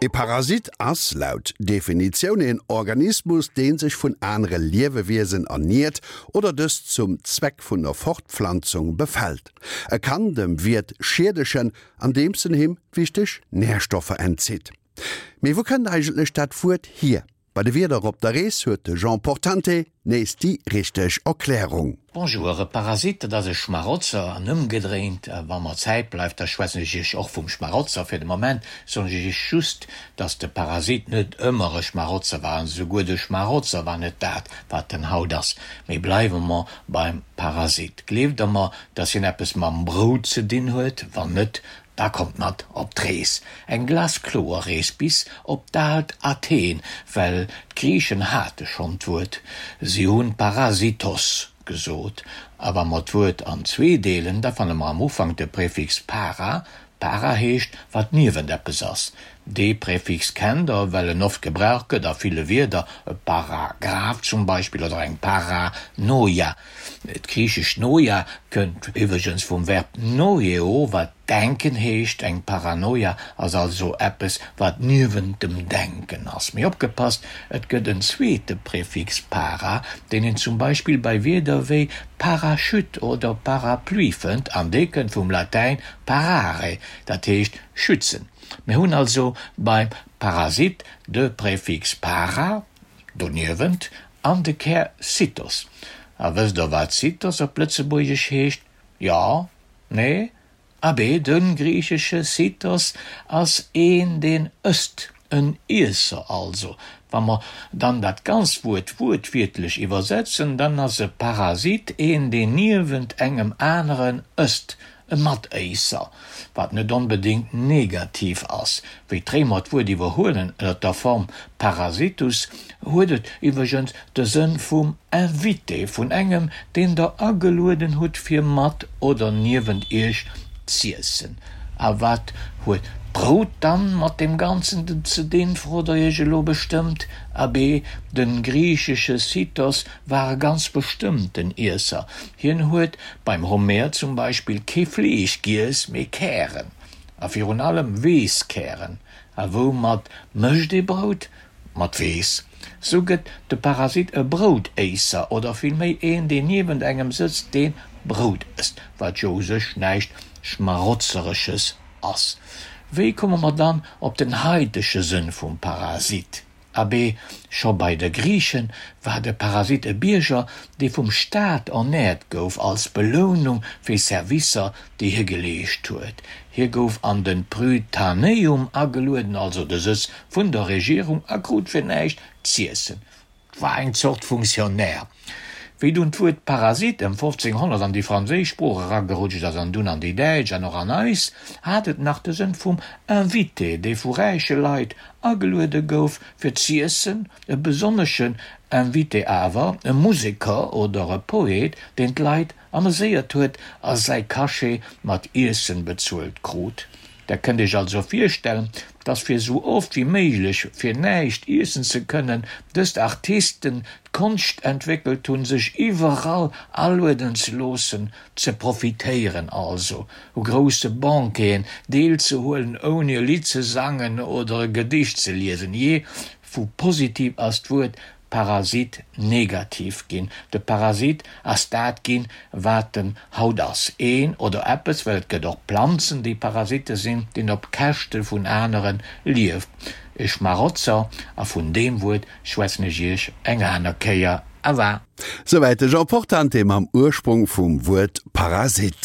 E Parasit ass, laut Definitioun, een Organismus, dee sech vun anere Liewewiesen erniert oder dës zum Zweck vun der Fortpflanzung befält. E kann dem Wiert schiedegen, andeems en him wichteg Närstoffer entzitt. Mee wou kënnt eigentlech dat Wuert hier? Bei de Wierder op der Rees huet de Jean Portante nees déi richteg Erklärung. Bonjour, e Parasit, dat ass e Schmarotzer an ëmgedréint. Wa mer Zäit bleift, da schwätzen ech Iech och vum Schmarotzer. Fir de Moment soen ech Iech just, dass de Parasit net ëmmer e Schmarotzer war an esouguer de Schmarotzer war net dat, wat en haut ass. Mee bleiwe mer beim Parasit. Gleeft Der mer, dass hien eppes mam Brout ze dinn huet? Wann net, Da kommt mat op d'Rees, eng glaskloer Rees bis op d'aalt Athen, well d'Griichen hate schonn d'Wuert, si hunn Parasitos gesot. A wa mer d'Wuert an zwee deelen, da fanne mer am Ufank de Präfix para, para heescht wat niewent eppes ass. Dee Präfix kennt der, well en oft gebraucht gëtt a ville Wierder, e Paragraph zum Beispill oder eng Paranoia. D'griichescht Noia kënnt iwwregens vum Verb noeo, wat denken heescht. Eng Paranoia ass also eppes, wat niewent dem Denken ass. Mee opgepasst, et gëtt en zweete Präfix para, deen een zum Beispill bei Wierder wéi Parachute oder Parapluie fënnt, an dee kënnt vum Latäin parare, dat heescht schützen. Mir hunn also beim Parasit de Präfix para, doniewent, An de Kär Cytos. A wësst der wat Cytos op Lëtzebuergesch heescht? Jo? Nee? Abee, de griichesche Cytos ass een deen ësst, en Iesser also. Wa mer dann dat ganzt Wuert wuertwiertlech iwwersetzen, dann ass e Parasit een deen niewent engem aneren ësst, E Matéisser, wat net onbedéngt negativ ass. Wéi d'Réimer d'Wuert iwwerhuelen ënner der Form parasitus, huet et iwwregens de Sënn vum Invité, vun engem, deen der agelueden hutt fir mat oder niewent iech z'iessen. A wat huet d'Brout dann mat deem Ganzen ze dinn, frot der iech elo bestëmmt. Abee, de griichesche Sithos war e ganz bestëmmten Iesser. Hien huet beim Homer zum Beispill kee Fleesch giess, mee Kären. A virun allem Weesskären. A woumat mécht ee Brout? Mat Weess. Sou gëtt de Parasit e Broutéisser oder villméi een, deen niewent engem sëtzt, dee Brout ësst, wat jo u sech näischt Schmarotzeresches ass. Wéi komme mer dann op den haitege Sënn vum Parasit? Abee, scho bei de Griiche war de Parasit e Bierger, dee vum Staat ernäert gouf als Belounung fir Servicer, déi hie geleescht huet. Hie gouf an de Prytaneum agelueden, also de Sëtz vun der Regierung, a krut fir näischt z'iessen. 't war eng Zort Fonctionnaire. Wéi dunn d'Wuert Parasit ëm 1500 an déi franséisch Sprooch eragerutscht ass an dunn an déi däitsch an och an eis, hat et nach de Sënn vum Invité, dee vu räiche Leit ageluede gouf fir z'iessen, e besonneschen Invité awer, e Museker oder e Poet, deen d'Leit ameséiert huet a säi Cachet mat Iessen bezuelt krut. Der kënnt Iech also virstellen, dass fir sou oft wéi méiglech fir näischt iessen ze kënnen, dëst Artisten d'Konscht entwéckelt hunn, sech iwwerall alueden ze loossen, ze profitéieren also, u grousse Banqueten deelzehuelen, ouni e Lidd ze sangen oder e Gedicht ze liesen. Jee, vu positiv ass d'Wuert Parasit negativ ginn. De Parasit ass dat ginn, wat en haut ass, een oder eppes, well et gëtt och Planzen, déi Parasitte sinn, deen op Käschte vun anere lieft. E Schmarotzer, a vun deem Wuert schwätzen ech Iech eng aner Kéier. Awa. Souwäit de Jean Portante mam Ursprong vum Wuert Parasit.